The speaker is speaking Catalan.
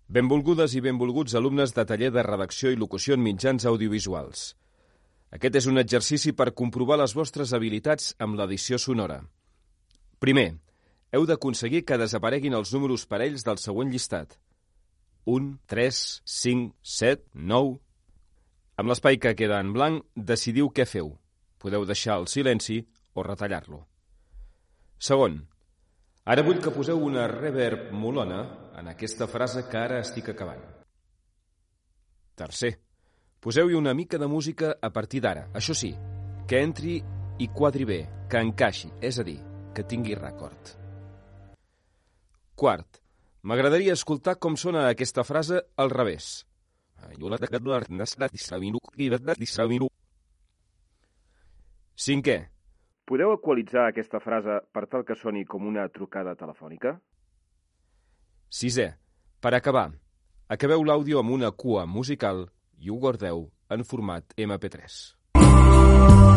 Benvolgudes i benvolguts alumnes de taller de redacció i locució en mitjans audiovisuals. Aquest és un exercici per comprovar les vostres habilitats amb l'edició sonora. Primer, heu d'aconseguir que desapareguin els números parells del següent llistat. 1, 3, 5, 7, 9... Amb l'espai que queda en blanc, decidiu què feu. Podeu deixar el silenci o retallar-lo. Segon, ara vull que poseu una reverb molona en aquesta frase que ara estic acabant. Tercer, poseu-hi una mica de música a partir d'ara. Això sí, que entri i quadri bé, que encaixi, és a dir, que tingui record. Quart, m'agradaria escoltar com sona aquesta frase al revés. Cinquè, podeu equalitzar aquesta frase per tal que soni com una trucada telefònica? Sisè, per acabar, acabeu l'àudio amb una cua musical i ho guardeu en format MP3.